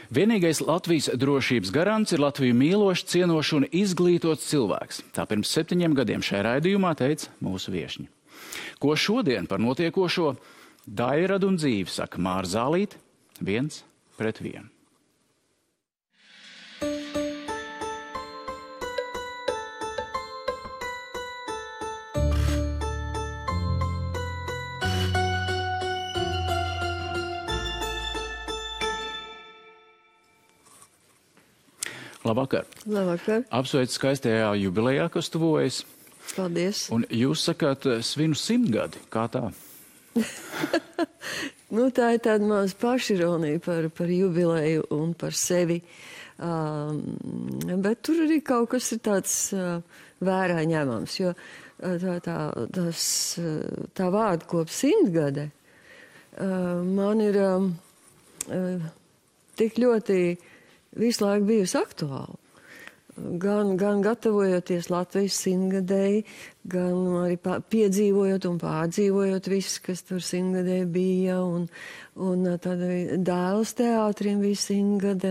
Vienīgais Latvijas drošības garants ir Latviju mīlošs, cienošs un izglītots cilvēks. Tā pirms 7 gadiem šajā raidījumā teica mūsu viešņi. Ko šodien par notiekošo Dairadu un dzīvi saka Māra Zālīte 1-1. Labvakar. Labvakar. Apsveicu skaistajā jubilejā, kas tuvojas. Paldies. Un jūs sakāt svinu 100 gadi. Kā tā? Tā ir tāda maz pašironija par jubileju un par sevi. Bet tur arī kaut kas ir tāds vērā ņemams, jo tā vārda kop 100 gadi man ir tik ļoti visu laiku bijusi aktuāla. Gan gatavojoties Latvijas 100-gadēji, gan arī piedzīvojot un pārdzīvojot viss, kas tur 100-gadēji bija, un tad Dēls teātrim bija 100-gade,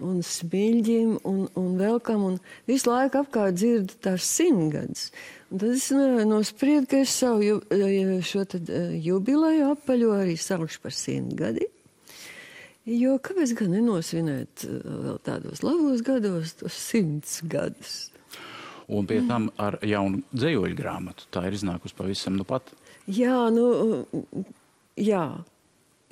un Smiļģim, un vēl kam, un visu laiku apkārt dzirdu tās 100-gadas. Un tad es nospriedu, ka es savu šo jubileju apaļo arī saukšu par 100 gadi. Jo kāpēc gan nenosvinēt vēl tādos labos gados tos 100 gadus? Un pie tam ar jaunu dzejoļu grāmatu. Tā ir iznākusi pavisam nu pat. Jā,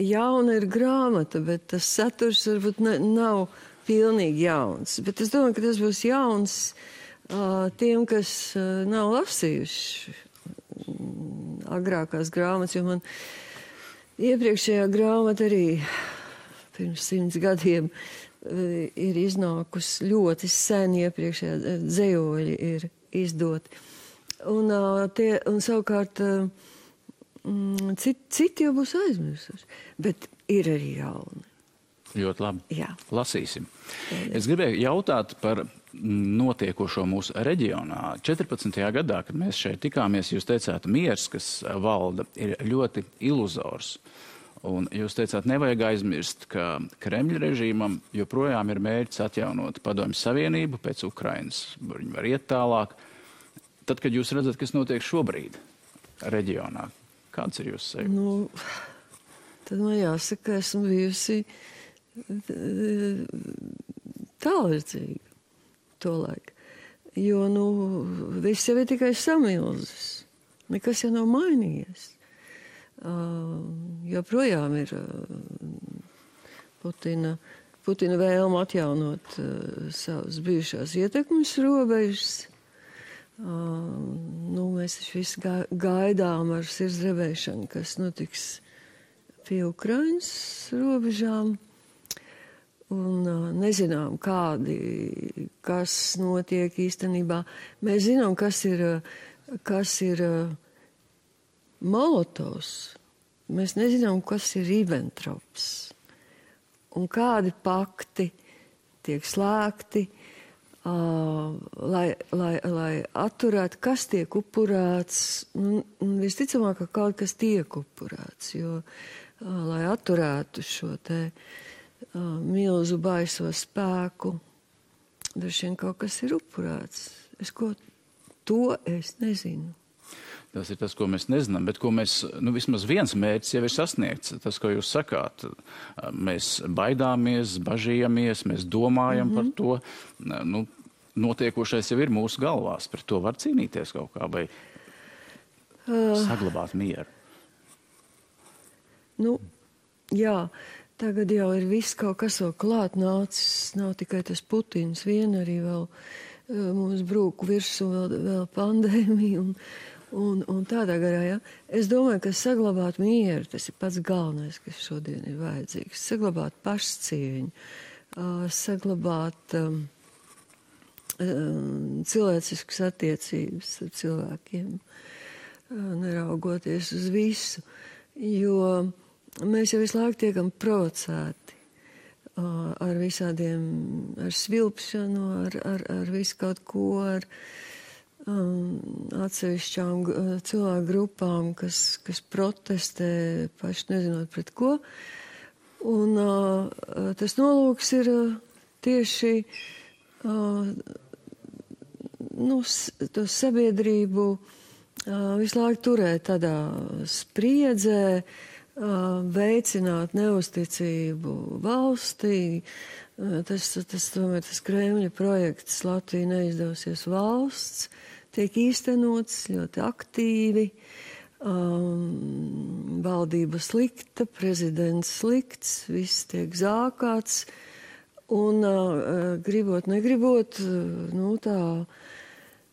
jauna ir grāmata, bet tas saturs varbūt nav pilnīgi jauns. Bet es domāju, ka tas būs jauns tiem, kas nav lasījuši agrākās grāmatas, jo man iepriekšējā grāmata arī pirms 100 gadiem ir iznākusi ļoti sen, iepriekšējā dzejoļi ir izdoti. Un savukārt citi jau būs aizmirsuši, bet ir arī jauni. Ļoti labi. Jā. Lasīsim. Es gribēju jautāt par notiekošo mūsu reģionā. 14. gadā, kad mēs šeit tikāmies, jūs teicāt, miers, kas valda, ir ļoti iluzors. Un jūs teicāt, nevajag aizmirst, ka Kremļa režīmam joprojām ir mērķis atjaunot Padomju Savienību pēc Ukrainas. Viņi var iet tālāk. Tad, kad jūs redzat, kas notiek šobrīd reģionā, kāds ir jūsu sajūta? Tad man jāsaka, esmu bijusi tālredzīga tolaik. Jo, viss jau ir tikai samilzis. Nekas jau nav mainījies. Joprojām ir Putina vēlme atjaunot savas bijušās ietekmes robežas. Mēs visi gaidām ar sirdsdrebēšanu, kas notiks pie Ukrainas robežām. Un nezinām, kas notiek īstenībā. Mēs zinām, kas ir Molotovs. Mēs nezinām, kas ir Ribbentrops. Un kādi pakti tiek slēgti, lai atturētu, kas tiek upurēts. Visticamāk, ka kaut kas tiek upurēts, jo, lai atturētu šo te milzu baiso spēku, droši vien kaut kas ir upurēts. To es nezinu. Tas ir tas, ko mēs nezinām, bet ko mēs, vismaz viens mērķis jau ir sasniegts. Tas, ko jūs sakāt, mēs baidāmies, bažījamies, mēs domājam par to. Notiekošais jau ir mūsu galvās. Par to var cīnīties kaut kā vai saglabāt mieru. Jā, tagad jau ir viss kaut kas vēl klāt nācis. Nav tikai tas Putins vien, arī vēl mums brūku virsū vēl pandēmija un tādā garā, ja. Es domāju, ka saglabāt mieru, tas ir pats galvenais, kas šodien ir vajadzīgs. Saglabāt pašcieņu, saglabāt cilvēciskas attiecības ar cilvēkiem, neraugoties uz visu, jo mēs jau visu laiku tiekam provocēti ar visādiem, ar svilpšanu, ar visu kaut ko, ar atsevišķām cilvēku grupām, kas protestē, paši nezinot pret ko. Un tas nolūks ir tieši to sabiedrību visu laiku turēt tādā spriedzē, veicināt neusticību valstī. Tomēr tas Kremļa projekts Latvija neizdosies valsts tiek īstenots ļoti aktīvi. Valdība slikta, prezidents slikts, viss tiek zākāts. Un gribot, negribot, tā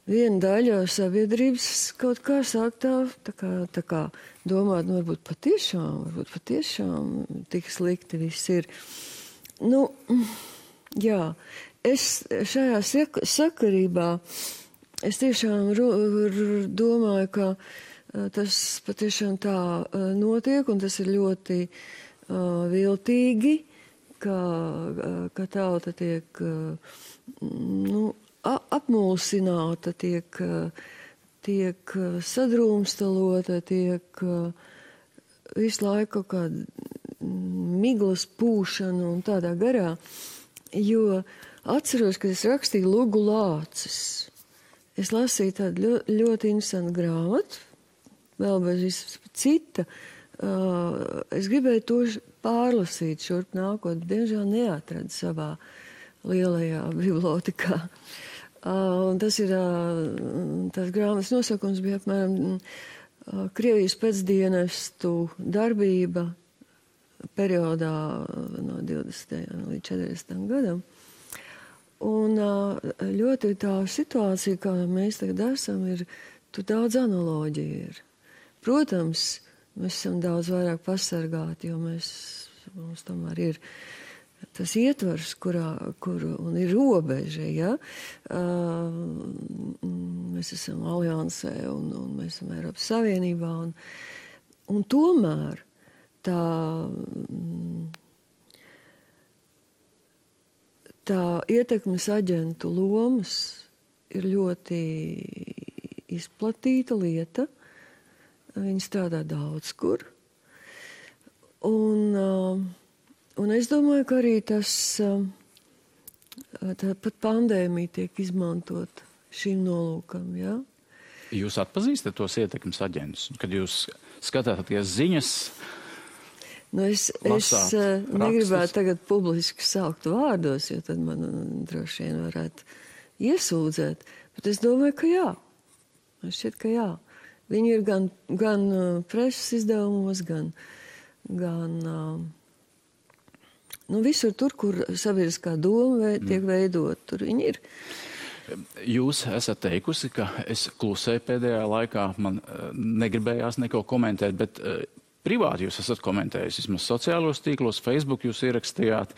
viena daļa sabiedrības kaut kā sāk tā kā domāt, varbūt patiešām tik slikti viss ir. Jā, es šajā sakarībā, es tiešām domāju, ka tas patiešām tā notiek, un tas ir ļoti viltīgi, ka tauta tiek apmulsināta, tiek sadrūmstalota, tiek visu laiku kaut kāda miglas pūšana un tādā garā. Jo atceros, kad es rakstīju Lugu Lācis. Es lasīju tādu ļoti interesantu grāmatu, vēl bez visu cita. Es gribēju to pārlasīt šurp nākot, diemžēl neatradu savā lielajā bibliotekā. Un tas ir, tās grāmatas nosaukums bija apmēram Krievijas pēcdienestu darbība periodā no 20. līdz 40. gadam. Un ļoti tā situācija, kā mēs tagad esam, ir, tur daudz analoģiju ir. Protams, mēs esam daudz vairāk pasargāti, jo mums tomēr ir tas ietvars, kur un ir robeža, ja? Mēs esam aliansē un mēs esam Eiropas Savienībā. Un tomēr tā ietekmes aģentu lomas ir ļoti izplatīta lieta. Viņi strādā daudz kur. Un es domāju, ka arī pat pandēmija tiek izmantot šim nolūkam, jā? Jūs atpazīstat tos ietekmes aģentus, kad jūs skatāties ziņas? Es negribētu tagad publiski saukt vārdos, jo tad man droši vien varētu iesūdzēt. Bet es domāju, ka jā. Man šķiet, ka jā. Viņi ir gan preses izdevumos, gan visur tur, kur sabiedriskā doma tiek veidot, tur viņi ir. Jūs esat teikusi, ka es klusēju pēdējā laikā, man negribējās neko komentēt, bet privāti jūs esat komentējis, vismaz sociālos tīklos, Facebook jūs ierakstījāt,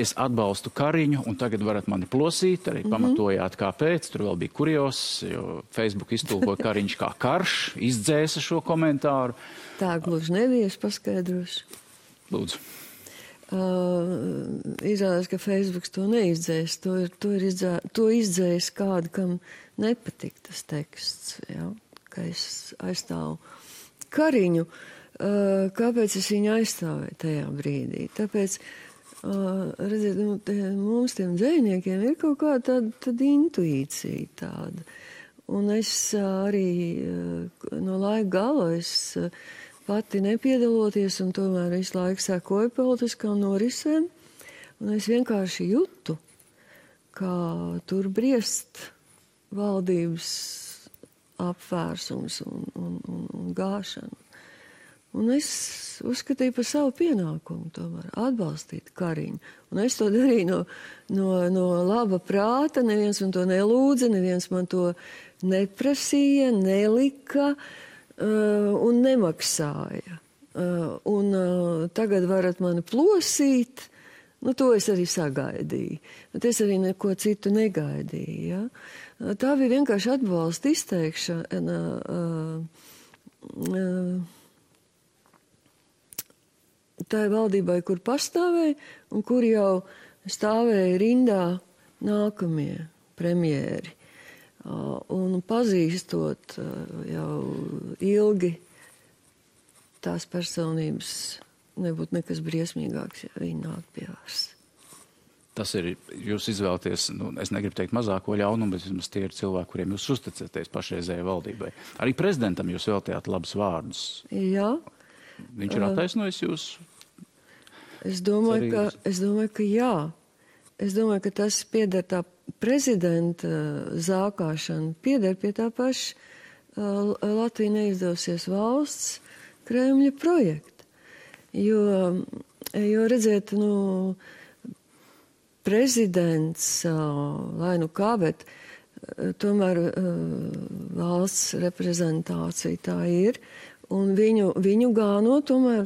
es atbalstu Kariņu, un tagad varat mani plosīt, arī pamatojāt, kāpēc, tur vēl bija kurios, jo Facebook iztulkoja Kariņš kā karš, izdzēsa šo komentāru. Tā gluži nebija, es paskaidrošu. Lūdzu. Izrādās, ka Facebooks to neizdzēs, to izdzēs kādu, kam nepatīk tas teksts, ja? Ka es aizstāvu Kariņu. Kāpēc es viņu aizstāvēju tajā brīdī? Tāpēc, redziet, mums tiem dzejniekiem ir kaut kāda tāda intuīcija tāda. Un es arī no laika gala pati nepiedaloties un tomēr visu laiku sekoju politiskām norisēm. Un es vienkārši jūtu, kā tur briest valdības apvērsums un gāšana. Un es uzskatīju par savu pienākumu tomēr atbalstīt Kariņu. Un es to darīju no laba prāta, neviens man to nelūdza, neviens man to neprasīja, nelika un nemaksāja. Un tagad varat mani plosīt, to es arī sagaidīju. Bet es arī neko citu negaidīju. Ja? Tā bija vienkārši atbalsta izteikšana. Tā ir valdībai, kur pastāvēja un kur jau stāvēja rindā nākamie premjeri. Un pazīstot jau ilgi tās personības nebūtu nekas briesmīgāks, ja viņi nāk pie varas. Tas ir, jūs izvēlaties, es negribu teikt mazāko ļaunumu, bet vismaz tie ir cilvēki, kuriem jūs uzticaties pašreizējai valdībai. Arī prezidentam jūs veltījāt labus vārdus. Jā. Viņš ir attaisnojis jūs? Es domāju, ka jā. Es domāju, ka tas pieder tā prezidenta zākāšana, pieder pie tā paša Latvija neizdosies valsts Kremļa projekta. Jo redziet, prezidents, lai kā, bet tomēr valsts reprezentācija tā ir, un viņu gāno tomēr,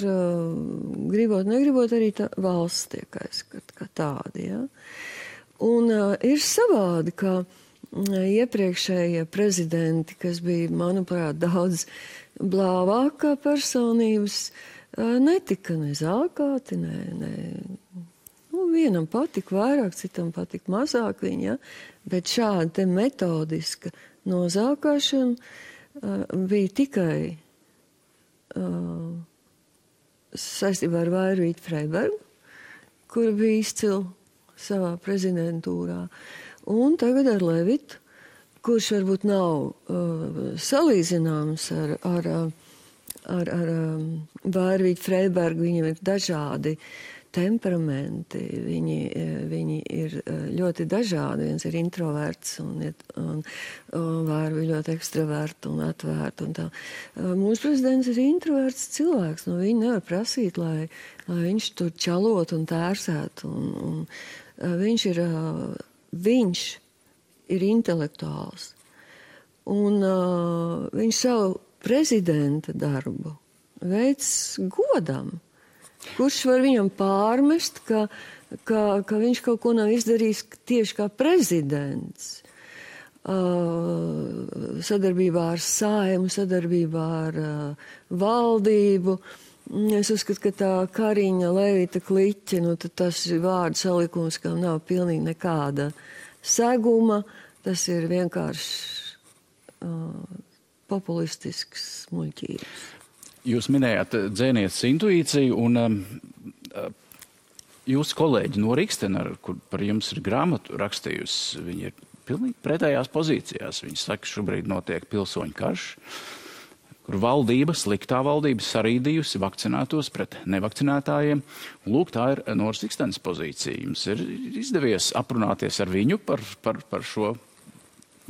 gribot, negribot, arī tā valsts tiek aizskata kā tādi, ja. Un ir savādi, ka iepriekšējie prezidenti, kas bija, manuprāt, daudz blāvākā personības, netika ne zākāti, vienam patika vairāk, citam patika mazāk viņa, bet šāda te metodiska nozākāšana bija tikai saistībā ar Vairvīti Freibergu, kura bija izcila savā prezidentūrā, un tagad ar Levitu, kurš varbūt nav salīdzināms ar Vairvīti Freibergu, viņam ir dažādi temperamenti, viņi ir ļoti dažādi. Viens ir introverts un Vairvi ļoti ekstraverti un atvērti. Un tā. Mūsu prezidents ir introverts cilvēks. Viņi nevar prasīt, lai viņš tur čalot un tērsēt. Un viņš ir intelektuāls. Un viņš savu prezidenta darbu veids godam. Kurš var viņam pārmest, ka viņš kaut ko nav izdarījis tieši kā prezidents, sadarbībā ar Saeimu, sadarbībā ar valdību. Es uzskatu, ka tā Kariņa, Levita kliķe, tad tas ir vārdu salikums, kam nav pilnīgi nekāda seguma. Tas ir vienkārši populistisks muļķības. Jūs minējāt dzēnieces intuīciju, un jūsu kolēģi no Rikstena, kur par jums ir grāmatu rakstījusi, viņi ir pilnīgi pretējās pozīcijās. Viņi saka, šobrīd notiek pilsoņu karš, kur valdība, sliktā valdība sarīdījusi vakcinētos pret nevakcinētājiem. Lūk, tā ir Noras Rikstenes pozīcija. Jums ir izdevies aprunāties ar viņu par šo,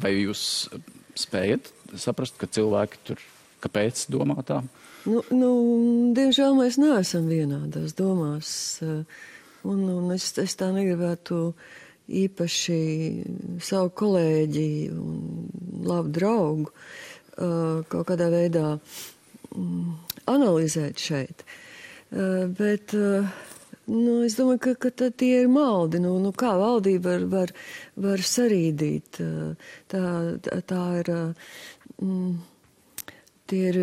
vai jūs spējat saprast, ka cilvēki tur kāpēc domā tā? Diemžēl mēs neesam vienādās domās, un es tā negribētu īpaši savu kolēģi un labu draugu kaut kādā veidā analizēt šeit. Bet es domāju, ka tie ir maldi. Kā valdība var sarīdīt? Tā ir... Tie ir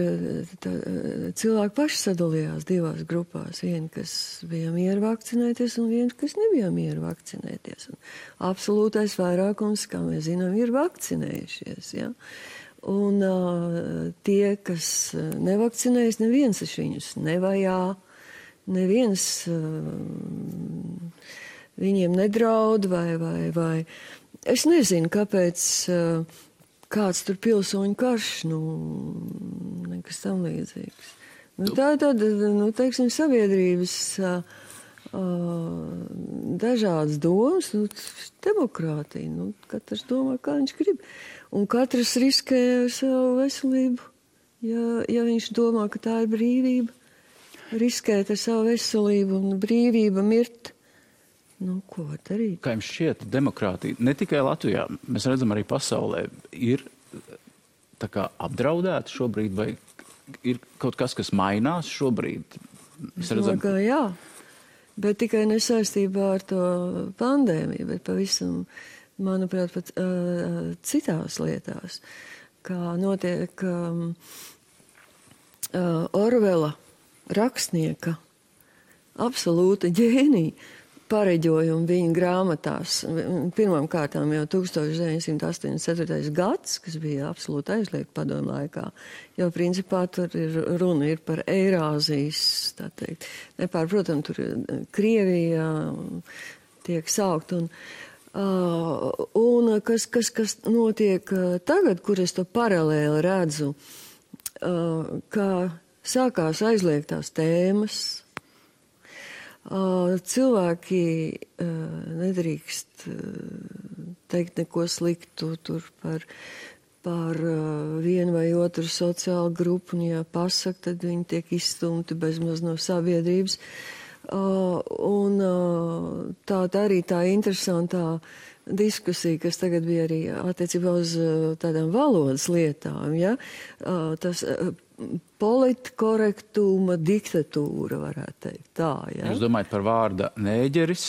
cilvēki paši sadalījās divās grupās. Vieni, kas bija mieru vakcinēties, un viens, kas nebija mieru vakcinēties. Un absolūtais vairākums, kā mēs zinām, ir vakcinējušies. Ja? Un tie, kas nevakcinējas, neviens viņus nevajā, neviens viņiem nedraud vai. Es nezinu, kāpēc... Kāds tur pilsoņu karš, nekas tam līdzīgs. Tā ir tāda, teiksim, sabiedrības dažādas domas, demokrātija. Katrs domā, kā viņš grib. Un katrs riskē ar savu veselību. Ja viņš domā, ka tā ir brīvība, riskēt ar savu veselību un brīvība mirt. Ko var darīt? Kā jums šķiet, demokrātija ne tikai Latvijā, mēs redzam arī pasaulē, ir tā kā apdraudēta šobrīd, vai ir kaut kas mainās šobrīd? Es domāju, ka jā, bet tikai nesaistībā ar to pandēmiju, bet pavisam, manuprāt, pat citās lietās, kā notiek Orvela rakstnieka absolūta ģēnija pareģojumu viņa grāmatās. Pirmām kārtām jau 1984. gads, kas bija absolūti aizliegts padomju laikā, jo principā tur runa ir par Eirāzijas, tā teikt. Nepārprotam, tur Krievija tiek saukt. Un kas notiek tagad, kur es to paralēli redzu, kā sākās aizliegtās tēmas, cilvēki nedrīkst teikt neko sliktu tur par vienu vai otru sociālu grupu, un ja pasaka, tad viņi tiek izstumti bezmaz no sabiedrības. Un tā arī tā interesantā diskusija, kas tagad bija arī attiecībā uz tādām valodas lietām, ja? Tas politkorektuma diktatūra, varētu teikt tā, ja? Jūs domājat par vārda nēģeris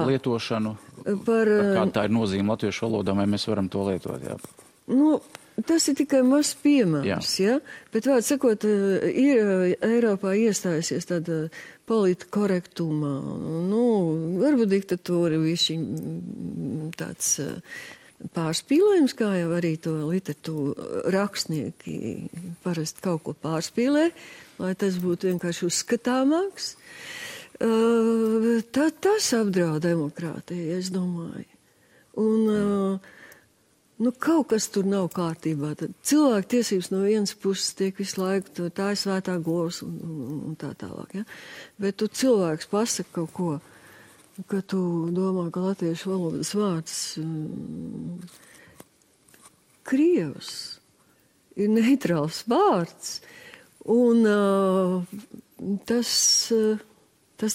lietošanu? Kāda tā ir nozīme latviešu valodā, vai mēs varam to lietot, jā? Nu, tas ir tikai mazs piemērs, ja? Bet vārds sakot, ir Eiropā iestājusies tāda politkorektuma, nu, varbūt diktatūra višķi tāds pārspīlējums, kā jau arī to literatūru rakstnieki parasti kaut ko pārspīlē, lai tas būtu vienkārši uzskatāmāks. Tas apdraud demokrātiju, es domāju. Un nu, kaut kas tur nav kārtībā. Tad cilvēku tiesības no vienas puses tiek visu laiku, tā ir svētā govs un tā tālāk. Ja? Bet tu cilvēks pasaka kaut ko, ka tu domā, ka latviešu valodas vārds Krievs ir neitrāls vārds, un tas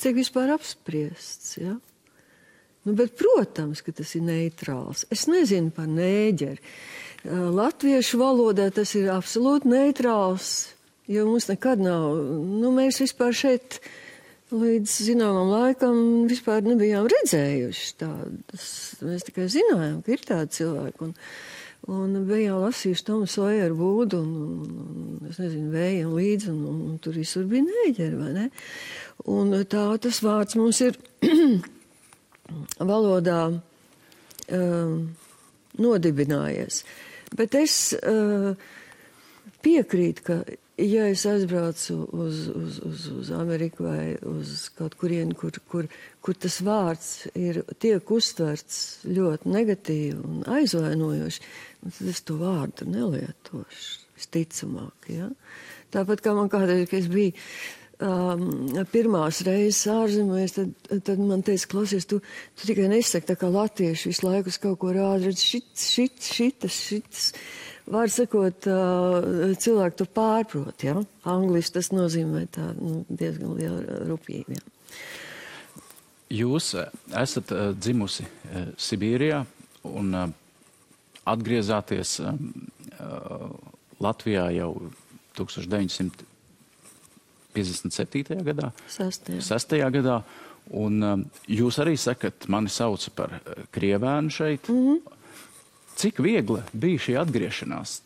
tiek vispār apspriests, ja? Nu, bet, protams, ka tas ir neitrāls. Es nezinu par nēģeri. Latviešu valodā tas ir absolūti neitrāls, jo mums nekad nav, nu, mēs vispār šeit līdz zināmam laikam vispār nebijām redzējuši tādas. Mēs tikai zinājām, ka ir tādi cilvēki. Un bijām lasījuši Tomu Sojeru Būdu un es nezinu, Vējam līdzi, un tur visur bija nēģeri, vai ne? Un tā tas vārds mums ir valodā nodibinājies. Bet es piekrītu, ka ja es aizbraucu uz Ameriku vai uz kaut kurienu, kur tas vārds tiek uztverts ļoti negatīvi un aizvainojoši, tad es to vārdu nelietošu, visticamāk, ja? Tāpat kā man kādreiz, ka es biju pirmās reizes ārzemēs, tad man teica, klausies, tu tikai nesaki tā kā latvieši visu laiku uz kaut ko rāda, redz, šitas. Vārds sakot, cilvēki to pārprot, ja? Angliski tas nozīmē tā, diezgan liela rupība, ja? Jūs esat dzimusi Sibīrijā un atgriezāties Latvijā jau 1957. gadā. 6. gadā. Un jūs arī sakat, mani sauca par krievēnu šeit. Mm-hmm. Cik viegli bija šī atgriešanās?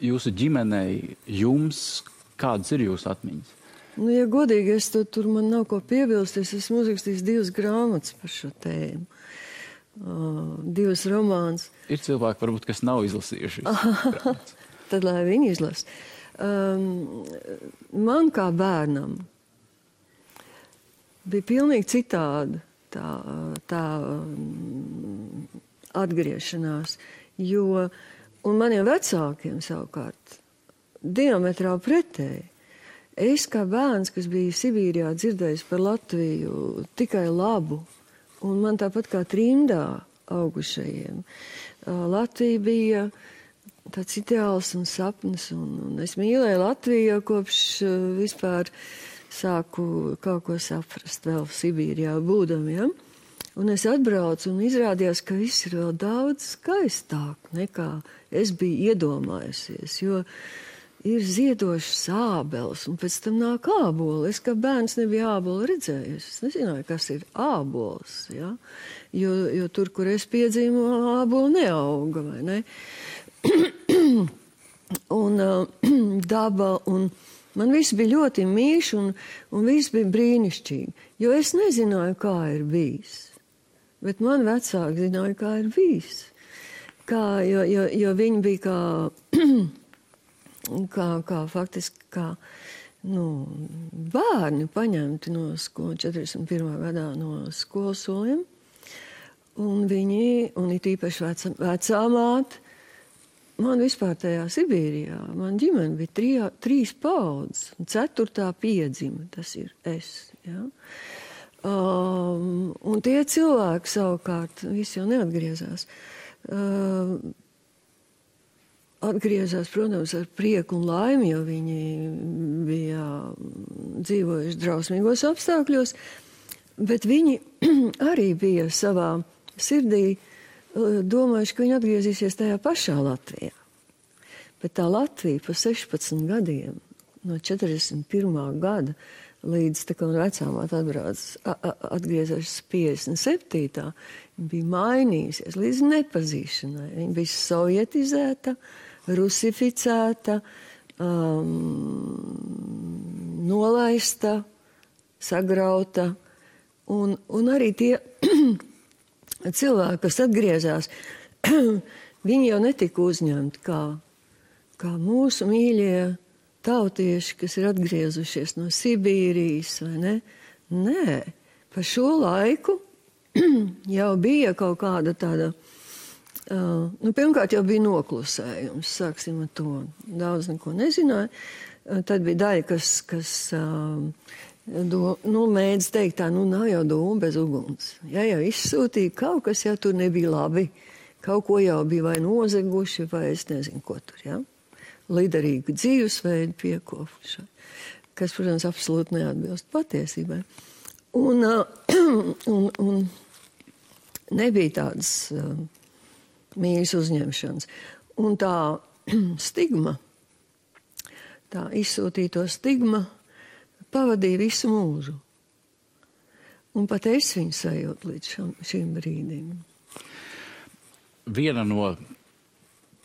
Jūsu ģimenei, jums, kādas ir jūsu atmiņas? Nu, ja godīgi, tur man nav ko piebilst, es esmu uzrakstījis 2 grāmatas par šo tēmu. 2 romāns. Ir cilvēki, varbūt, kas nav izlasījuši. Tad, lai viņi izlas. Man kā bērnam bija pilnīgi citāda tā atgriešanās, un maniem vecākiem savukārt diametrāli pretēji. Es kā bērns, kas bija Sibīrijā dzirdējis par Latviju tikai labu, un man tāpat kā trimdā augušajiem, Latvija bija tāds ideāls un sapnis, un es mīlēju Latviju kopš vispār sāku kaut ko saprast vēl Sibīrijā būdam, ja? Un es atbraucu un izrādījās, ka viss ir vēl daudz skaistāk nekā es biju iedomājusies, jo ir ziedošas ābeles, un pēc tam nāk āboli. Es kā bērns nebiju ābolu redzējusi. Es nezināju, kas ir ābols, ja? Jo tur, kur es piedzīvu, āboli neauga, vai ne? Un daba un Man viss bija ļoti mīļš un viss bija brīnišķīgi, jo es nezināju, kā ir bijis. Bet man vecāki zināja, kā ir bijis. Jo viņi bija kā faktiski bērni paņemti no 41. gadā no skolas soliem. Un it īpaši vecā māte, man vispār tajā Sibīrijā, man ģimene bija 3 paudzes, un 4. piedzima, tas ir es, ja. Un tie cilvēki savukārt, visi jau neatgriezās. Atgriezās, protams, ar prieku un laimi, jo viņi bija dzīvojuši drausmīgos apstākļos, bet viņi arī bija savā sirdī domājuši, ka viņi atgriezīsies tajā pašā Latvijā. Bet tā Latvija pa 16 gadiem, no 41. gada līdz tā kā vecāmāt atgriezās 57. bija mainījusies līdz nepazīšanai. Viņa bija sovietizēta, rusificēta, nolaista, sagrauta. Un arī tie cilvēki, kas atgriezās, viņi jau netika uzņemti kā mūsu mīļie tautieši, kas ir atgriezušies no Sibīrijas, vai ne? Nē, pa šo laiku jau bija kaut kāda tāda, pirmkārt jau bija noklusējums, sāksim ar to. Daudz neko nezināja. Tad bija daļa, kas mēdz teikt tā, nav jau dūma bez uguns. Ja jau izsūtīja, kaut kas jau tur nebija labi. Kaut ko jau bija vai nozeguši, vai es nezinu, ko tur, ja? Liderīgu dzīvesveidu piekopuši, kas, protams, absolūti neatbilst patiesībai. Un nebija tādas mīļas uzņemšanas. Un tā stigma, tā izsūtīto stigma pavadīja visu mūžu. Un pat es viņu sajūtu līdz šim brīdim. Viena no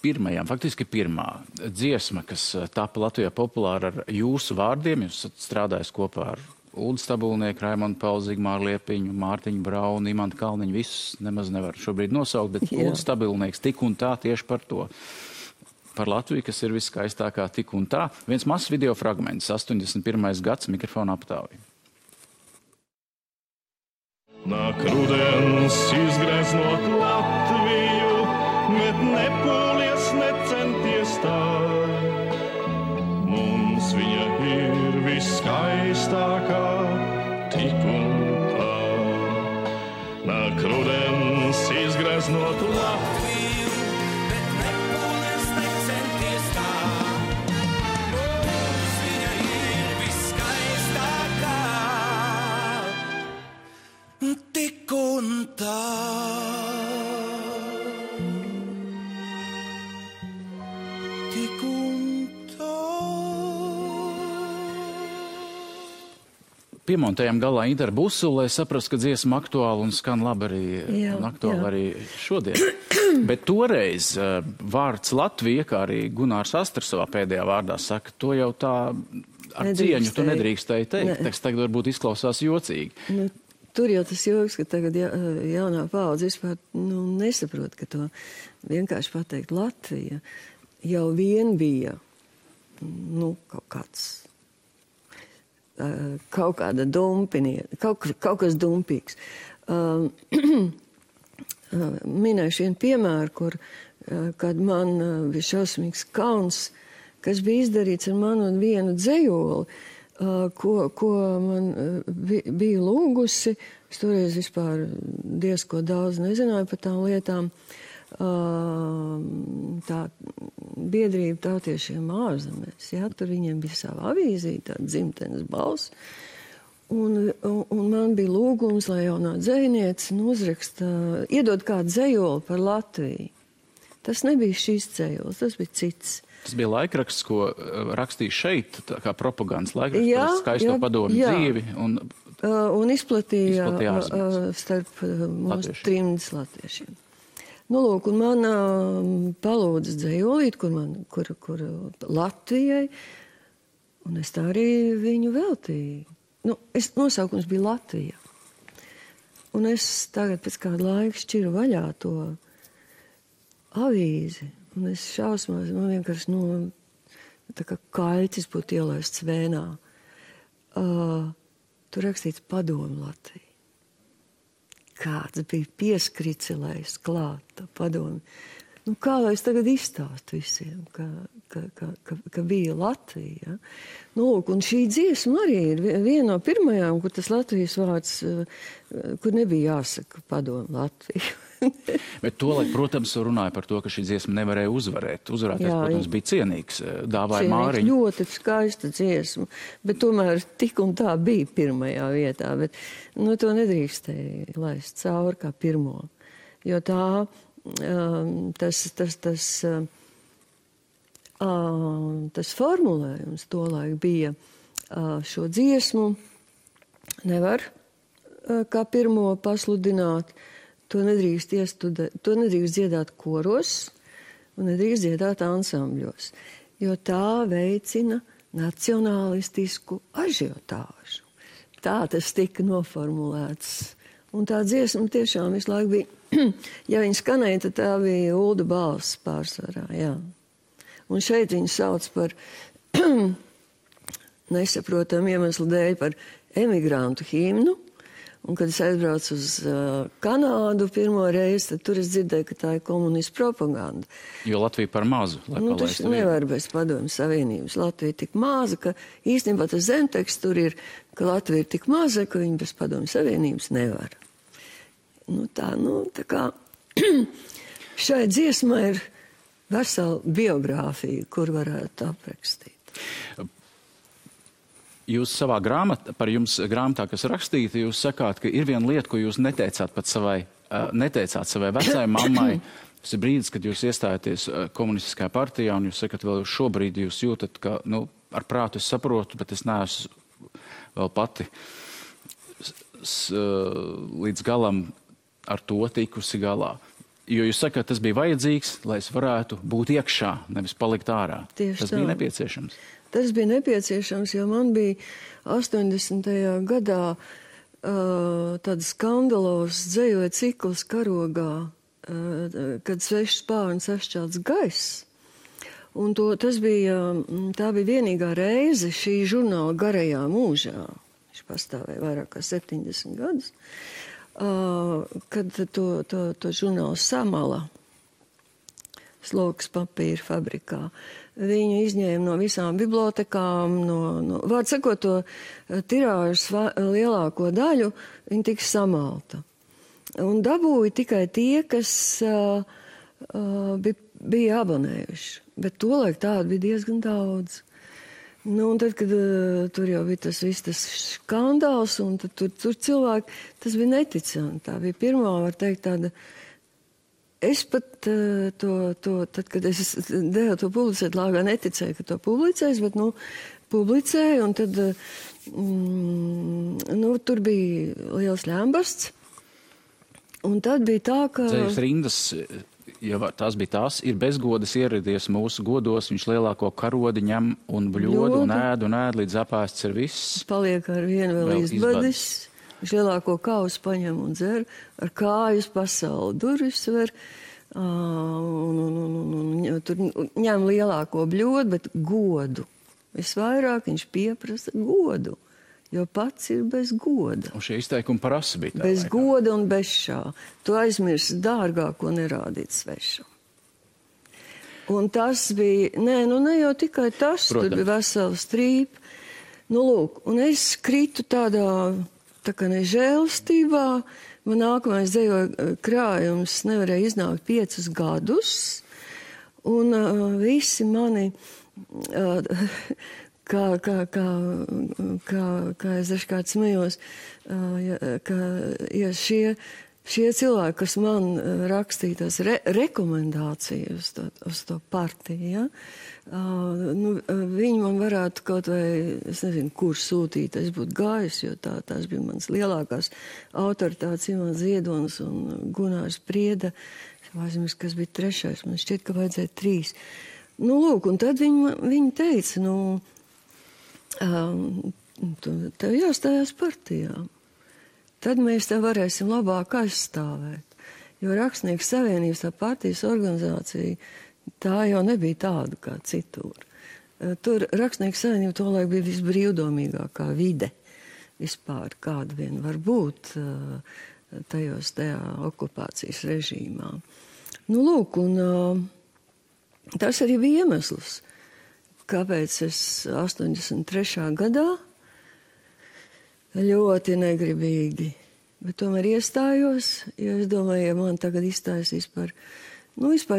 pirmajām, faktiski pirmā dziesma, kas tapa Latvijā populāra ar jūsu vārdiem, jūs strādājat kopā ar Uldu Stabulnieku, Raimondu Paulu, Zigmāru Liepiņu, Mārtiņu Braunu, Imantu Kalniņu, visus nemaz nevar šobrīd nosaukt, bet Uldu Stabulnieks tik un tā tieši par to. Par Latviju, kas ir viskaistākā tik un tā. Viens mazs video fragments, 81. gads, mikrofona aptāvi. Nāk rudens izgreznot Latviju, bet nepūlies, necenties tā. Mums viņa ir viskaistākā tik un tā. Nāk rudens izgreznot Latviju, bet nepūlies, necenties tā. Mums viņa ir viskaistākā tik un tā. Tik un tā. Piemontējam galā Interu Busuli, lai saprastu, ka dziesma aktuāla un skan labi arī, arī šodien. Bet toreiz vārds Latvija, kā arī Gunārs Astars savā pēdējā vārdā saka, to jau tā ar cieņu tu nedrīkstēji teikt. Tas tagad varbūt izklausās jocīgi. Tur jau tas joks, ka tagad jaunā paudze vispār nesaprot, ka to vienkārši pateikt Latvija jau vien bija kaut kāds, kaut kāda dumpinieta, kaut kas dumpīgs. Minēšu vienu piemēru, kad man bija šausmīgs kauns, kas bija izdarīts ar manu un vienu dzejoli, ko man bija lūgusi. Es toreiz vispār diezko daudz nezināju par tām lietām. Tā biedrība tautiešiem ārzemēs, tur viņiem bija sava avīzīte, tāda dzimtenes balss. Un man bija lūgums, lai jaunā dzejniece uzraksta, iedod kādu dzejoli par Latviju. Tas nebija šīs dzejols, tas bija cits. Tas bija laikraksts, ko rakstīja šeit, kā propagandas laikraksts par skaisto padomu dzīvi. Un izplatīja starp mūsu trimdas latviešiem. Lūk, un man palūdza dzejolīt, kur Latvijai Un es tā arī viņu veltīju. Nu, nosaukums bija Latvija. Un es tagad pēc kāda laika šķiru vaļā to avīzi. Un es šausmās, man vienkārši tā kā kaļķis būtu ielaists vēnā. Tur rakstīts Padomu Latvija. Kāds bija pieskricelējis klāt tā padomi. Nu, kā lai es tagad izstāstu visiem, ka bija Latvija. Ja? Nu, un šī dziesma arī ir viena no pirmajām, kur tas Latvijas vārds, kur nebija jāsaka Padomu Latviju. Bet tolaik, protams, runāja par to, ka šī dziesma nevarēja uzvarēt. Uzvarēties, protams, bija cienīgs. Dāvāja Māriņu. Ļoti skaista dziesma, bet tomēr tik un tā bija pirmajā vietā. Bet, nu, to nedrīkstēja laist cauri kā pirmo. Jo tā, tas formulējums tolaik bija šo dziesmu nevar kā pirmo pasludināt. To nedrīkst dziedāt koros un nedrīkst dziedāt ansambļos, jo tā veicina nacionālistisku ažiotāžu. Tā tas tika noformulēts. Un tā dziesma tiešām visu laiku bija, ja viņa skanēja, tad tā bija Ulda balss pārsvarā, jā. Un šeit viņu sauc par nesaprotam iemeslu dēļ par emigrantu himnu. Un, kad es aizbraucu uz Kanādu pirmo reizi, tad tur es dzirdēju, ka tā ir komunistu propaganda. Jo Latvija par mazu, lai palaistu Tas nevar bez Padomju Savienības. Latvija ir tik maza, ka īstenībā tas zemteksts tur ir, ka Latvija ir tik maza, ka viņa bez Padomju Savienības nevar. Tā kā šai dziesmai ir vesela biogrāfija, kur varētu aprakstīt. Jūs savā grāmatā, kas rakstīta, jūs sakāt, ka ir viena lieta, ko jūs neteicāt savai vecai mammai. Tas ir brīdis, kad jūs iestājaties komunistiskajā partijā, un jūs sakat, vēl šobrīd jūs jūtat, ka, ar prātu es saprotu, bet es neesmu vēl pati līdz galam ar to tikusi galā. Jo jūs sakat, tas bija vajadzīgs, lai es varētu būt iekšā, nevis palikt ārā. Tieši tas bija nepieciešams. Tas bija nepieciešams, jo man bija 80. gadā tāds skandalos dzējoja cikls karogā, kad svešs spārns sašķelts gaiss. Un tā bija vienīgā reize šī žurnāla garajā mūžā, viņš pastāvēja vairāk kā 70 gadus, kad to žurnālu Samala sloks papīra fabrikā. Viņu izņēma no visām bibliotekām, vārdu sakot, to tirāžas lielāko daļu, viņa tika samalta. Un dabūja tikai tie, kas bija abonējuši. Bet tolaik tādu bija diezgan daudz. Un tad, kad tur jau bija tas skandāls, un tad tur cilvēki, tas bija neticami. Tā bija pirmā, var teikt, tāda. Es pat tad, kad es devu to publicēt, lāgā neticēju, ka to publicēs, bet, publicēju, un tad, tur bija liels ļambasts, un tad bija tā, ka... Dzējas rindas, ja tās bija tās, ir bezgodas ieradies mūsu godos, viņš lielāko karodi ņem un bļodu un ēd, līdz apēsts ir viss. Paliek ar vienu vēl izbadis. Viņš lielāko kausu paņem un dzer, ar kājas pasauli durvis ver, tur ņem lielāko bļodu, bet godu. Visvairāk viņš pieprasa godu, jo pats ir bez goda. Un šie izteikumi prasa bija tā. Bez goda un bez šā. Tu aizmirsti dārgāko nerādīt svešam. Un tas bija, ne jau tikai tas, Protams. Tur bija vesela strīpa. Lūk, un es kritu tā kā nežēlstībā, man nākamais dzējoja krājums nevarēja iznākt 5 gadus, un visi mani, kā es dažkārt smējos, ja šie cilvēki, kas man rakstīja tās rekomendācijas uz to partiju, ja, viņi man varētu kaut vai, es nezinu, kur sūtīt, es būtu gājis, jo tās bija manas lielākās autoritātes, Imants Ziedonis un Gunārs Prieda, aizmirst, kas bija 3. Man šķiet, ka vajadzēja 3. Lūk, un tad viņi teica, tev jāstājās partijā. Tad mēs tev varēsim labāk aizstāvēt. Jo Rakstnieku savienības, tā partijas organizācija, tā jau nebija tāda kā citur. Tur Rakstnieku savienība tolaik bija visbrīvdomīgākā vide vispār, kāda vien var būt tajā okupācijas režīmā. Nu, lūk, un tas arī bija iemesls, kāpēc es 83. gadā ļoti negribīgi, bet tomēr iestājos, jo es domāju, ja man tagad izstājas vispār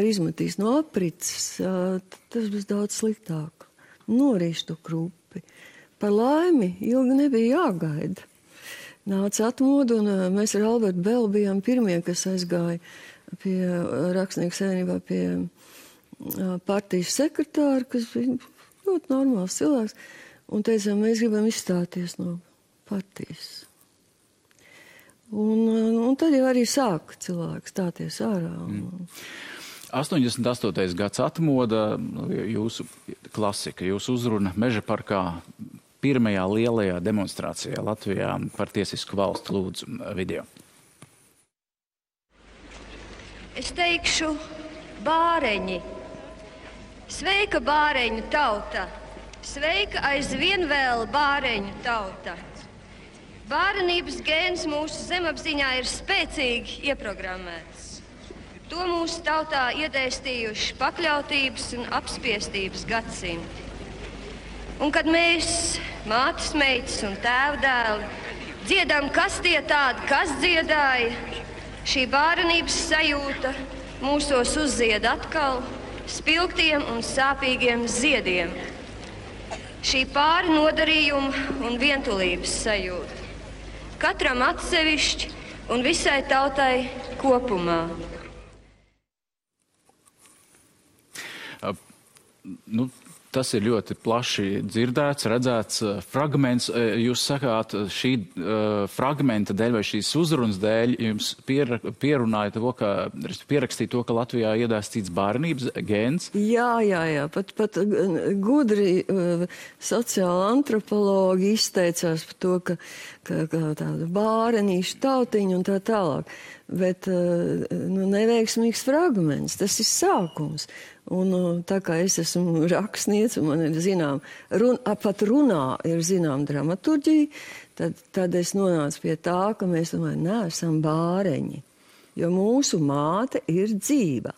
izmetīs no aprits, tas būs daudz sliktāk. Norīšu to krupi. Par laimi ilgi nebija jāgaida. Nāca atmodu, un mēs ar Albertu Belu bijām pirmie, kas aizgāja pie Rakstnieku savienībā pie partijas sekretāra, kas bija ļoti normāls cilvēks, un teicām, mēs gribam izstāties no partijas. Un tad jau arī sāka cilvēki stāties ārā. 88. gads atmoda, jūsu klasika, jūsu uzruna Meža parkā pirmajā lielajā demonstrācijā Latvijā par tiesisku valstu, lūdzu video. Es teikšu bāreņi. Sveika bāreņu tauta. Sveika aizvien vēl bāreņu tauta. Bārenības gēns mūsu zemapziņā ir spēcīgi ieprogrammēts. To mūsu tautā iedēstījuši pakļautības un apspiestības gadsimti. Un kad mēs, mātes meitas un tēvdēli, dziedam, kas tie tādi, kas dziedāja, šī bārenības sajūta mūsos uzzied atkal spilgtiem un sāpīgiem ziediem. Šī pāri nodarījuma un vientulības sajūta. Katram atsevišķi un visai tautai kopumā. Tas ir ļoti plaši dzirdēts, redzēts fragments. Jūs sakāt, šī fragmenta dēļ vai šīs uzrunas dēļ jums pierunāja to, pierakstīja to, ka Latvijā iedēstīts bārenības gēns? Jā. Pat gudri sociāla antropologi izteicās par to, ka tāda bārenīša tautiņa un tā tālāk. Bet neveiksmīgs fragments, tas ir sākums. Un tā kā es esmu rakstniece, un man ir pat runā ir dramaturģija, tad es nonācu pie tā, ka mēs neesam bāreņi, jo mūsu māte ir dzīva.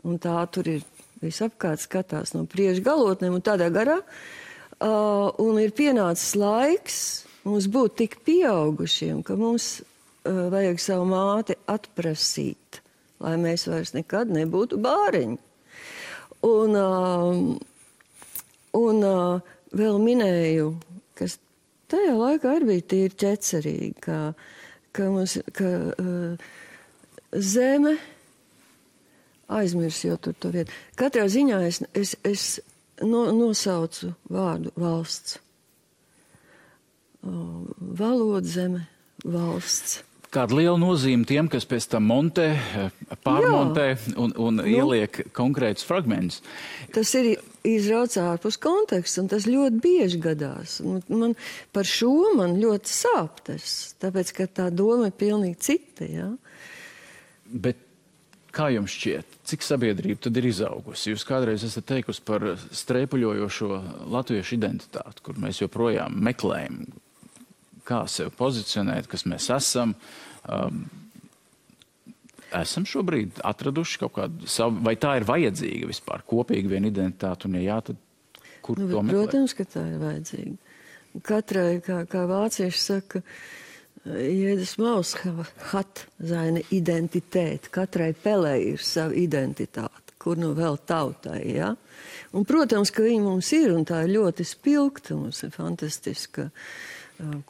Un tā tur ir visapkārt skatās no priekšgalotnēm un tādā garā. Un ir pienācis laiks mums būt tik pieaugušiem, ka mums vajag savu māti atprasīt, lai mēs vairs nekad nebūtu bāreņi. Un vēl minēju, kas tajā laikā arī bija tīri ķecerīgi, ka zeme aizmirs jau tur to vietu. Katrā ziņā es nosaucu vārdu valsts. Valoda, zeme, valsts. Kāda liela nozīme tiem, kas pēc tam montē, pārmontē un ieliek konkrētus fragmentus? Tas ir izrauts ārpus konteksta, un tas ļoti bieži gadās. Man par šo man ļoti sāp tas, tāpēc, ka tā doma ir pilnīgi cita, jā. Bet kā jums šķiet, cik sabiedrība tad ir izaugusi? Jūs kādreiz esat teikusi par streipuļojošo latviešu identitāti, kur mēs joprojām meklējam, kā sevi pozicionēt, kas mēs esam. Esam šobrīd atraduši kaut kādu savu, vai tā ir vajadzīga vispār, kopīgi viena identitāte, un ja jā, tad kur to meklēt? Protams, ka tā ir vajadzīga. Katrai, kā vācieši saka, jedes Maus hat seine Identität. Katrai pelē ir sava identitāte, kur nu vēl tautai, ja? Un, protams, ka viņi mums ir, un tā ir ļoti spilgta, mums ir fantastiska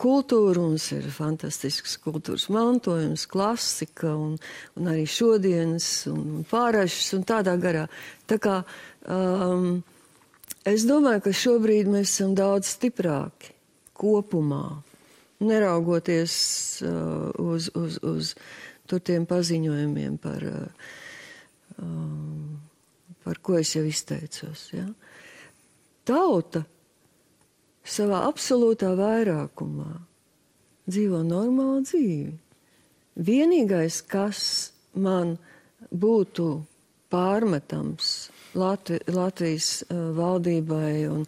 kultūra, mums ir fantastisks kultūras mantojums, klasika un arī šodienas un pārāšas un tādā garā. Tā kā es domāju, ka šobrīd mēs esam daudz stiprāki kopumā, neraugoties uz tur tiem paziņojumiem par ko es jau izteicos. Ja? Tauta savā absolūtā vairākumā dzīvo normālu dzīvi. Vienīgais, kas man būtu pārmetams Latvijas valdībai un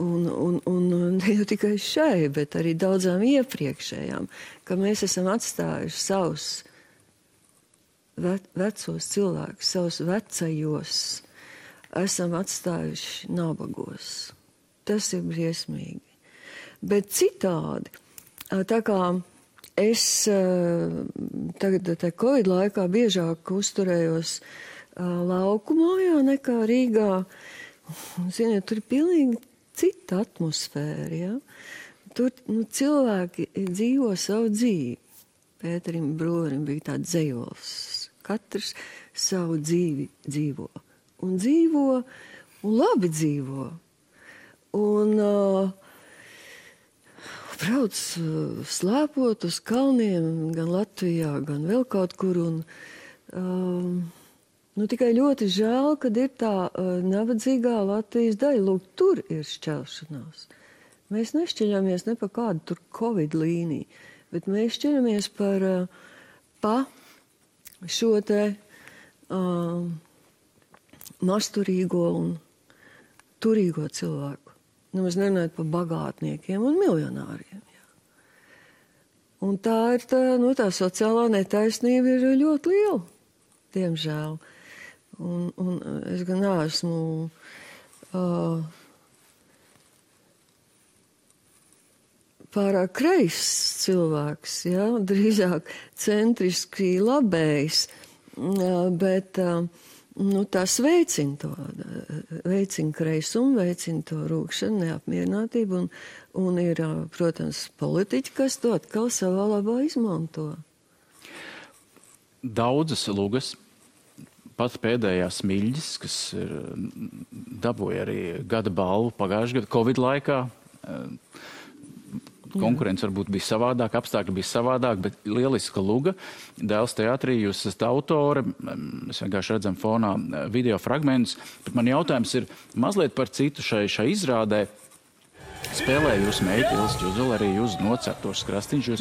ne jau tikai šai, bet arī daudzām iepriekšējām, ka mēs esam atstājuši savus vecos cilvēkus, savus vecajos, esam atstājuši nabagos. Tas ir briesmīgi. Bet citādi, tā kā es tagad Covid laikā biežāk uzturējos lauku mājā nekā Rīgā, ziniet, tur ir pilnīgi cita atmosfēra, ja? Tur cilvēki dzīvo savu dzīvi. Pēterim Broverim bija tāds dzejols. Katrs savu dzīvi dzīvo. Un labi dzīvo. Un brauc slēpot uz kalniem, gan Latvijā, gan vēl kaut kur. Tikai ļoti žēl, kad ir tā nabadzīgā Latvijas daļa. Lūk, tur ir šķelšanās. Mēs nešķeļamies ne pa kādu tur Covid līniju, bet mēs šķeļamies pa šo te masturīgo un turīgo cilvēku. Nemaz nerunājot par bagātniekiem un miljonāriem. Jā. Un tā ir tā sociālā netaisnība ir ļoti liela, diemžēl. Un es gan neesmu pārāk kreis cilvēks, ja? Drīzāk centriski labējs, bet tas veicina kreisumu, veicina to rūkšanu, neapmierinātību, un ir, protams, politiķi, kas to atkal savā labā izmanto. Daudzas lugas, pat pēdējās Smiļģis, kas dabūja arī gada balvu pagājušajā gada Covid laikā. Konkurence varbūt bija savādāk, apstākļi bija savādāk, bet lieliska luga. Dēls teātrī, jūs esat autore, mēs vienkārši redzam fonā video fragmentus, bet man jautājums ir mazliet par citu šai izrādē. Spēlēja jūs meiti, Ilse Džuzula, arī jūs noceptos krastiņš.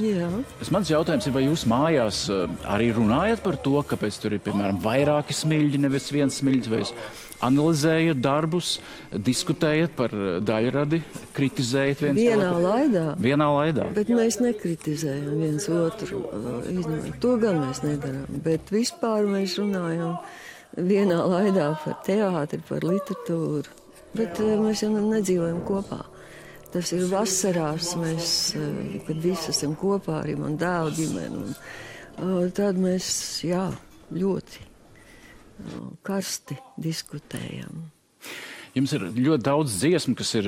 Mans jautājums ir, vai jūs mājās arī runājat par to, kāpēc tur ir, piemēram, vairāki Smiļģi, nevis viens Smiļģis, vai jūs analizējat darbus, diskutējat par daļradi, kritizējat viens otru? Vienā laidā. Bet mēs nekritizējam viens otru. To gan mēs nedarām. Bet vispār mēs runājam vienā laidā par teātri, par literatūru. Bet mēs jau nedzīvojam kopā. Tas ir vasarās, kad visi esam kopā, arī man dēlu ģimeni. Tad mēs, ļoti karsti diskutējam. Jums ir ļoti daudz dziesmu, kas ir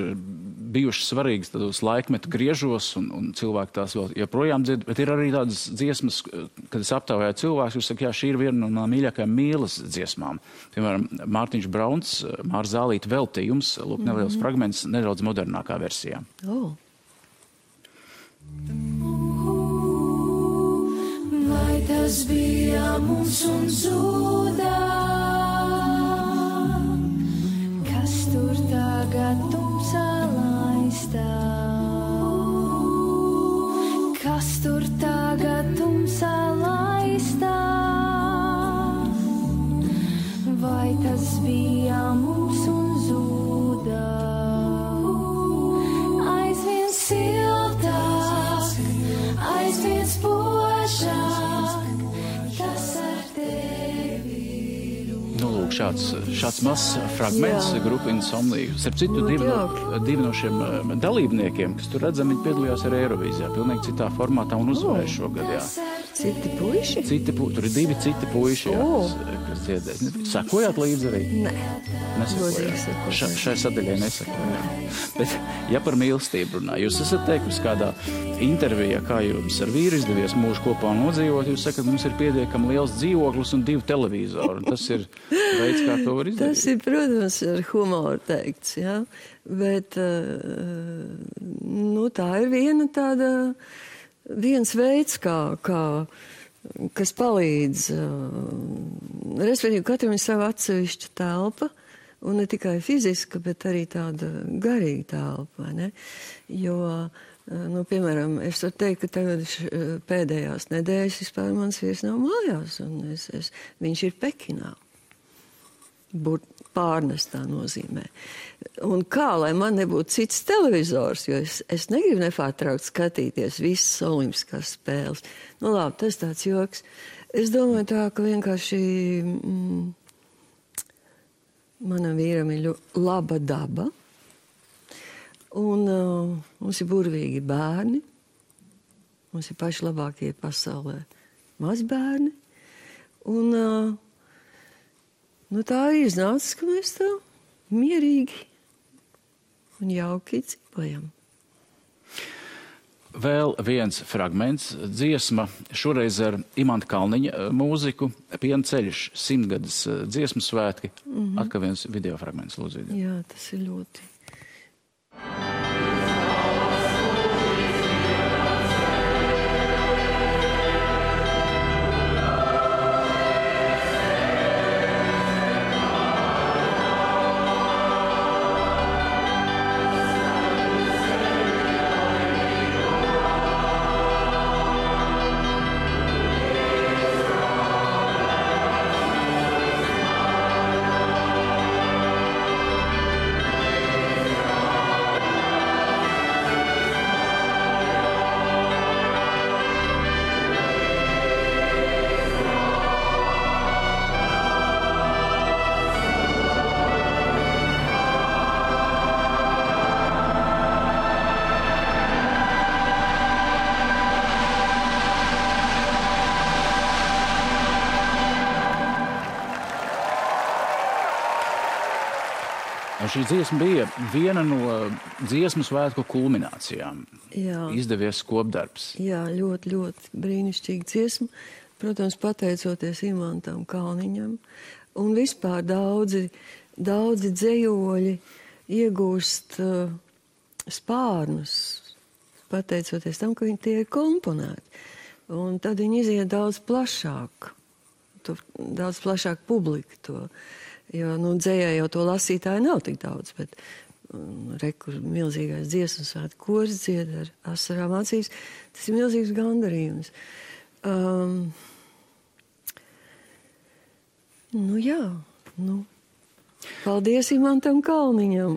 bijušas svarīgas tādos laikmetu griežos, un cilvēki tās vēl joprojām dzird, bet ir arī tādas dziesmas, kad es aptaujāju cilvēkus, jūs saka, šī ir viena no mīļākajām mīlas dziesmām. Piemēram, Mārtiņš Brauns, Māra Zālīte veltījums, lūk, neliels fragments, nedaudz modernākā versijā. Vai tas bija mums un zudā? Kas tur tagad tumsā laistā? Kas tur tagad tumsā laistā? Vai tas bija mums un zudā? Aizvien siltāk, aizvien spožāk, tas ar tevi. Lūk, šāds mazs fragments grupa Insomnija. Starp citu, divi no šiem dalībniekiem, kas tur redzam, viņi piedalījās arī Eirovīzijā, pilnīgi citā formātā un uzvarēja šogad, jā. Citi puiši? Tur ir divi citi puiši, kas dziedēs. Sakojāt līdzi arī? Nē. Nesakojāt. Šai sadaļai nesakojāt. Bet, ja par mīlestību runā, jūs esat teikusi kādā intervijā, kā jums ar vīru izdevies mūžu kopā nodzīvot, jūs sakat, mums ir pietiekami liels dzīvoklis un 2 televizori. Un tas ir veids, kā to var izdarīt. Tas ir, protams, ar humoru teikts, jā. Bet, tā ir viens veids, kas palīdz. Respektīvi, katram ir sava atsevišķa telpa, Un ne tikai fiziska, bet arī tāda garīga telpa, vai ne? Jo, nu, piemēram, es varu teikt, ka tagad pēdējās nedēļas vispār mans vīrs nav mājās, un viņš ir Pekinā. Pārnestā nozīmē. Un kā, lai man nebūtu cits televizors, jo es negribu nepārtraukt skatīties visas olimpiskās spēles. Nu labi, tas tāds joks. Es domāju tā, ka vienkārši manam vīram ir laba daba. Un mums ir burvīgi bērni. Mums ir paši labākie pasaulē mazbērni. Un nu, tā ir iznācis, ka mēs tā mierīgi un jauki dzīvojam. Vēl viens fragments, dziesma, šoreiz ar Imanta Kalniņa mūziku, Piena ceļš, 100-gadas dziesmu svētki. Atkal viens video fragments, lūdzu. Jā, tas ir ļoti. Šī dziesma bija viena no dziesmu svētku kulminācijām. Jā. Izdevies kopdarbs. Jā, ļoti, ļoti brīnišķīga dziesma. Protams, pateicoties Imantam Kalniņam. Un vispār daudzi dzejoļi iegūst spārnus, pateicoties tam, ka tie ir komponēti. Un tad viņi iziet daudz plašāk. Daudz plašāk publika to. Jo, nu, dzējā jau to lasītāju nav tik daudz, bet rekur milzīgais dziesmu svētku koris dzied ar asarām acīs. Tas ir milzīgs gandarījums. Nu jā, nu. Paldies Imantam Kalniņam.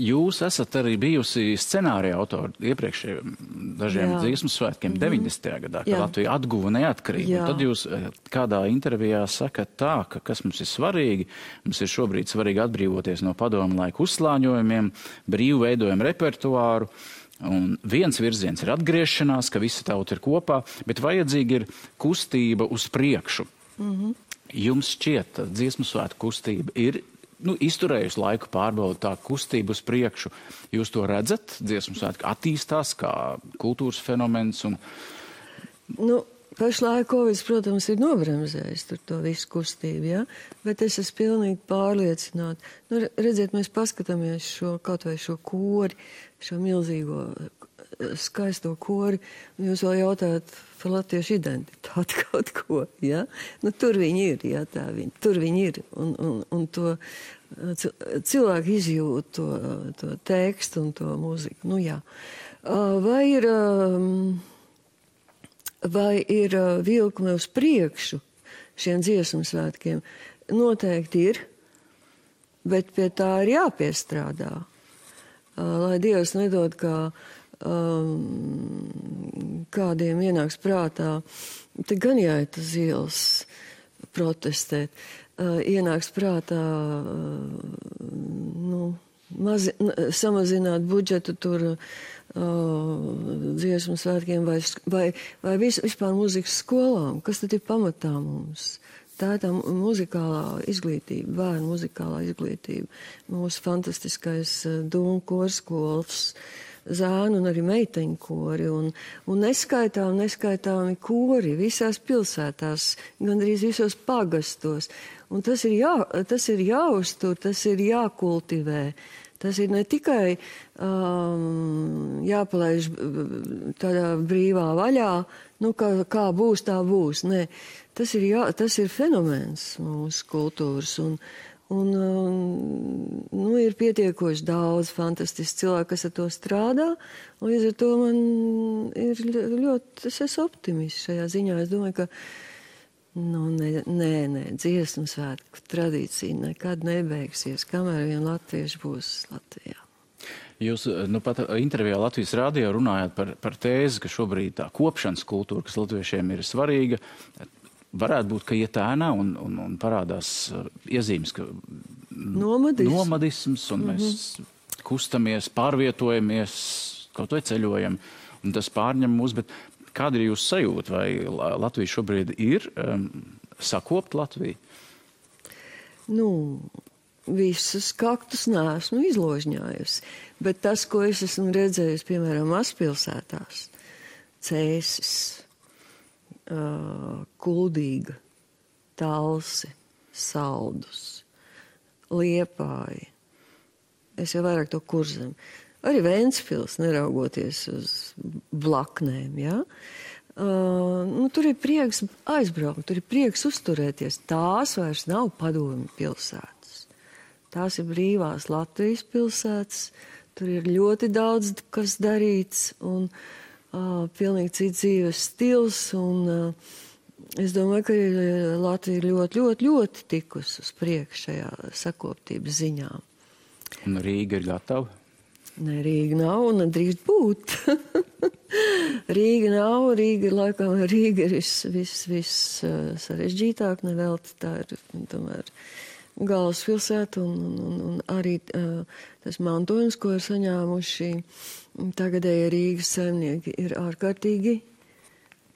Jūs esat arī bijusi scenārija autori iepriekšējiem dažiem dziesmu svētkiem 90. gadā, kad Latvija atguva neatkarību. Tad jūs kādā intervijā sakat tā, ka kas mums ir svarīgi, mums ir šobrīd svarīgi atbrīvoties no padomu laiku uzslāņojumiem, brīvi veidojam repertuāru, un viens virziens ir atgriešanās, ka visa tauta ir kopā, bet vajadzīga ir kustība uz priekšu. Jums šķiet, dziesmu svētku kustība ir izturējusi laiku pārbaudu tā kustību uz priekšu. Jūs to redzat? Dziesmu svētki attīstās kā kultūras fenomens? Nu, pašlaik Covid, protams, ir nobremzējis to visu kustību, ja? Bet es esmu pilnīgi pārliecināta. Nu, redziet, mēs paskatāmies kaut vai šo kori, šo milzīgo skaisto kori, un jūs vēl jautājat par latviešu identitāti kaut ko, ja? Nu, tur viņi ir, ja, tur viņi ir, un to cilvēki izjūt to tekstu un to mūziku, nu jā. Vai ir vilkme uz priekšu šiem dziesmu svētkiem? Noteikti ir, bet pie tā ir jāpiestrādā. Lai Dievs nedod, kā kādiem ienāks prātā, te gan jāiet uz ielas protestēt, ienāks prātā samazināt budžetu tur dziesmu svētkiem vai vispār mūzikas skolām. Kas tad ir pamatā mums? Tā ir tā muzikālā izglītība, bērnu muzikālā izglītība. Mūsu fantastiskais dūmu korskols, zēnu un arī meiteņu kori un neskaitāmi kori visās pilsētās, gandrīz visos pagastos. Un tas ir jāuztur, tas ir jākultivē. Tas ir ne tikai jāpalaiž tādā brīvā vaļā, nu kā būs, tā būs. Nē, tas ir fenomens mūsu kultūras Un ir pietiekoši daudz fantastiski cilvēku, kas ar to strādā. Līdz ar to man ir ļoti, es esmu optimists šajā ziņā. Es domāju, ka dziesmu svētku tradīcija nekad nebeigsies, kamēr vien latvieši būs Latvijā. Jūs pat intervijā Latvijas radio runājāt par tēzi, ka šobrīd tā kopšanas kultūra, kas latviešiem ir svarīga, varētu būt, ka iet ēnā un parādās iezīmes, ka nomadisms, un mēs kustamies, pārvietojamies, kaut vai ceļojam, un tas pārņem mūs, bet kāda ir jūsu sajūta, vai Latvija šobrīd ir sakopt Latviju? Visus kaktus neesmu izložņājusi, bet tas, ko es esmu redzējusi, piemēram, mazpilsētās, Cēsis, Kuldīga, Talsi, Saldus, Liepāja. Es jau vairāk to Kurzem. Arī Ventspils, neraugoties uz blaknēm, ja? Tur ir prieks aizbraukt, tur ir prieks uzturēties. Tās vairs nav padomju pilsētas. Tās ir brīvās Latvijas pilsētas. Tur ir ļoti daudz, kas darīts, un pilnīgi cits dzīves stils, un es domāju, ka Latvija ir ļoti, ļoti, ļoti tikusi uz priekšu šajā sakoptības ziņā. Un Rīga ir gatava? Nē, Rīga nav un nedrīkst būt. Rīga nav, Rīga ir viss sarežģītāk, nevelti tā ir tomēr galvaspilsēta, un arī tas mantojums, ko ir saņēmuši tagadēji Rīgas saimnieki, ir ārkārtīgi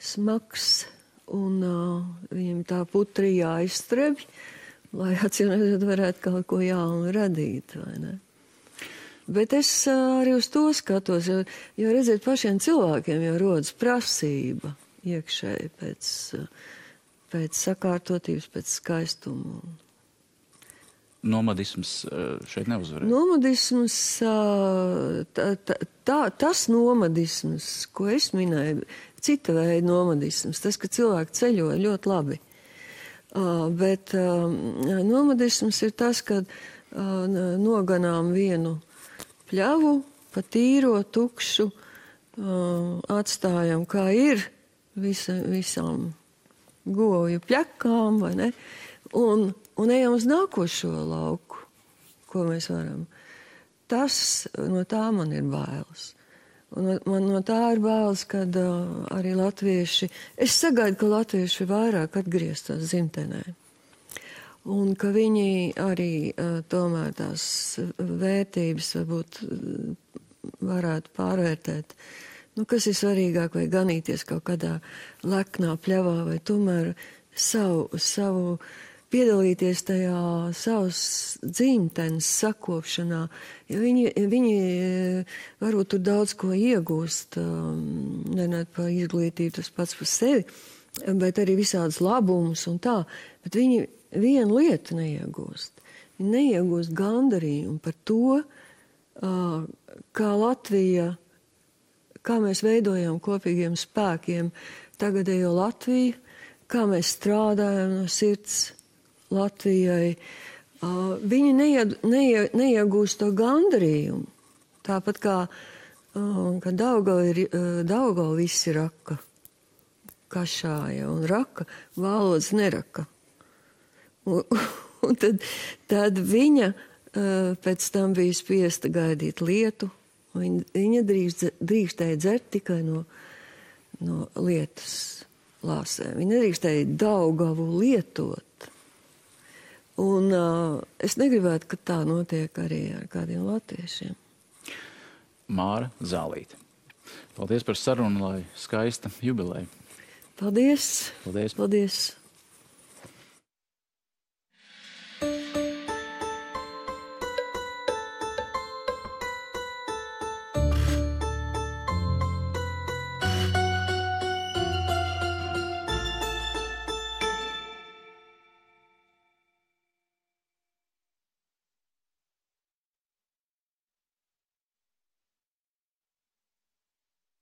smags, un viņiem tā putri jāizstrebj, lai atcīmredzot varētu kaut ko jaunu radīt, vai ne? Bet es arī uz to skatos, jo redziet, pašiem cilvēkiem jau rodas prasība iekšēji pēc sakārtotības, pēc skaistuma. Nomadisms šeit neuzvarēja? Nomadisms, tas nomadisms, ko es minēju, cita veida nomadisms, tas, ka cilvēki ceļo ļoti labi. Bet nomadisms ir tas, kad noganām vienu pļavu, pa tīro, tukšu, atstājam, kā ir, visām govju pļakām, vai ne? Un ejam uz nākošo lauku, ko mēs varam. No tā man ir bailes. Un man no tā ir bailes, kad arī latvieši, es sagaidu, ka latvieši vairāk atgrieztos dzimtenē. Un ka viņi arī tomēr tās vērtības varbūt varētu pārvērtēt. Kas ir svarīgāk, vai ganīties kaut kādā leknā pļavā, vai tomēr savu piedalīties tajā savas dzimtenes sakopšanā, jo viņi varbūt tur daudz ko iegūst, nerunāt par izglītību, tas pats par sevi, bet arī visādas labumus un tā, bet viņi vienu lietu neiegūst. Viņi neiegūst gandarījumu par to, kā Latvija, kā mēs veidojam kopīgiem spēkiem tagadējo Latviju, kā mēs strādājam no sirds Latvijai. Viņi neiegūst to gandarījumu. Tāpat kā Daugava visi raka, kašāja un raka, valodas neraka. Un tad viņa pēc tam bija spiesta gaidīt lietu. Viņa drīkstēja dzert tikai no lietas lāsēm. Viņa nedrīkstēja Daugavu lietot. Un es negribētu, ka tā notiek arī ar kādiem latviešiem. Māra Zālīte. Paldies par sarunu, lai skaista jubileja. Paldies. Paldies. Paldies.